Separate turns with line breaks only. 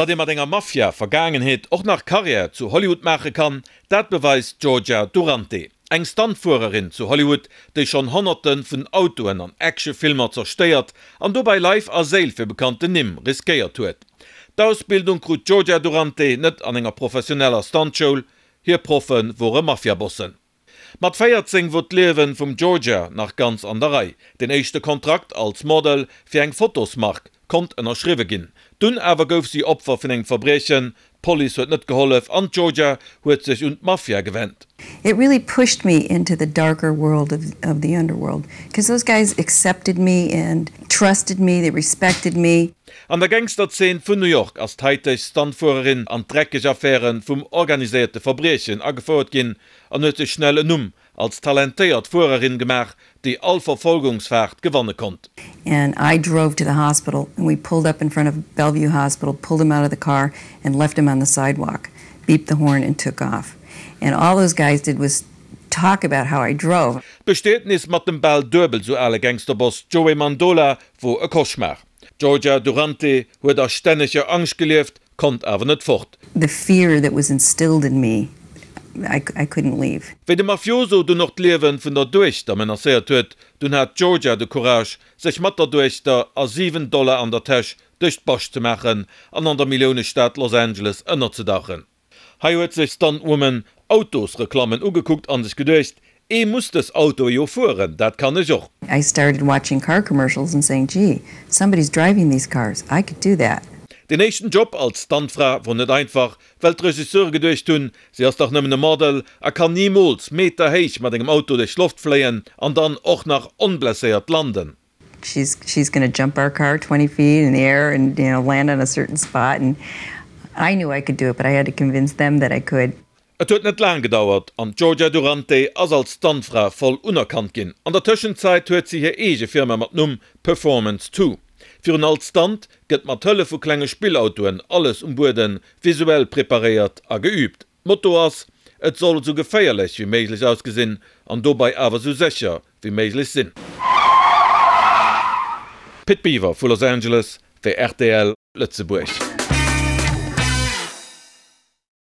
Datt ee mat enger Mafia-Vergaangenheet och nach Karriär zu Hollywood maache kann, dat beweist d'Georgia Durante, eng Stuntfuererin zu Hollywood, déi schonn Honnerte vun Autoen an Actionfilmer zerstéiert an dobäi Leif a Séil fir bekannten Nimm riskéiert huet. D'Ausbildung krut d'Georgia Durante net an enger professioneller Stuntschoul, hir Proffe wore Mafiabossen. Mat 14 wor d'Liewen vum Georgia nach ganz an der Rei. Den éischte Kontrakt als Model fir eng Fotosmark konnt ënnerschriwwe ginn. Dunn awer gouf si Opfer vun engem Verbriechen, d'Police huet net gehollef an d'Georgia huet sech un d'Mafia gewennt.
It really pushed me into the darker world of of the underworld, cause those guys accepted me and trusted me, they respected me.
An der Gangsterzeen vun New York ass d'haiteg Stuntfuererin an d'dreckeg Affäre vum organiséierte Verbriechen agefouert ginn an huet sech schnell en Numm als talentéiert Fuererin gemaach, déi all Verfolgungsfaart gewanne konnt.
And I drove to the hospital and we pulled up in front of Bellevue Hospital, pulled him out of the car and left him on the sidewalk, beeped the horn and took off. And all those guys did was talk about how I drove.
D'Bestietnis mat dem bal duebel sou ale Gangsterboss Joey Mandola wor e Cauchemar. D'Georgia Durante huet a stänneger Angscht gelieft, konnt awer net fort.
The fear that was instilled in me, I I couldn't leave.
Wéi de Mafioso dunn och d'Liewe vun der Duechter menacéiert huet, dunn hat d'Georgia de Courage, sech mat der Duechter a 7 Dollar an der Täsch duerch d'Bascht ze maachen an an der Milliounestad Los Angeles ënnerzedauchen. Hei huet sech Stuntwoman Autosreklammen ugekuckt an sech geduecht, Ee muss dës Autoe jo fueren, dat kann ech och.
I started watching car commercials and saying, Gee, somebody's driving these cars, I could do that.
Deen éischten Job als Stuntfra wor net einfach, well d'Regisseure geduecht hunn, si ass dach nëmmen e Model a kann nimools Meter héich mat engem Auto duerch d'Loft fléien an dann och nach onblesséiert landen.
She's she's gonna jump our car 20 feet in the air and you know land on a certain spot and I knew I could do it, but I had to convince them that I could.
Et huet net laang gedauert an d'Georgia Durante ass als Stuntfra voll unerkannt ginn. An der Tëschenzäit huet si hir eege Firma mat Numm Performance Two. Virun all Stunt gëtt mat Hëllef vu klenge Spillautoen alles um Buede visuell preparéiert a geüübt. D'Motto ass, Et soll esou geféierlech wéi méiglech ausgesinn an dobei awer esou sécher wéi méiglech sinn. Pit Biwer vu Los Angeles fir rtl Lëtzebuerg.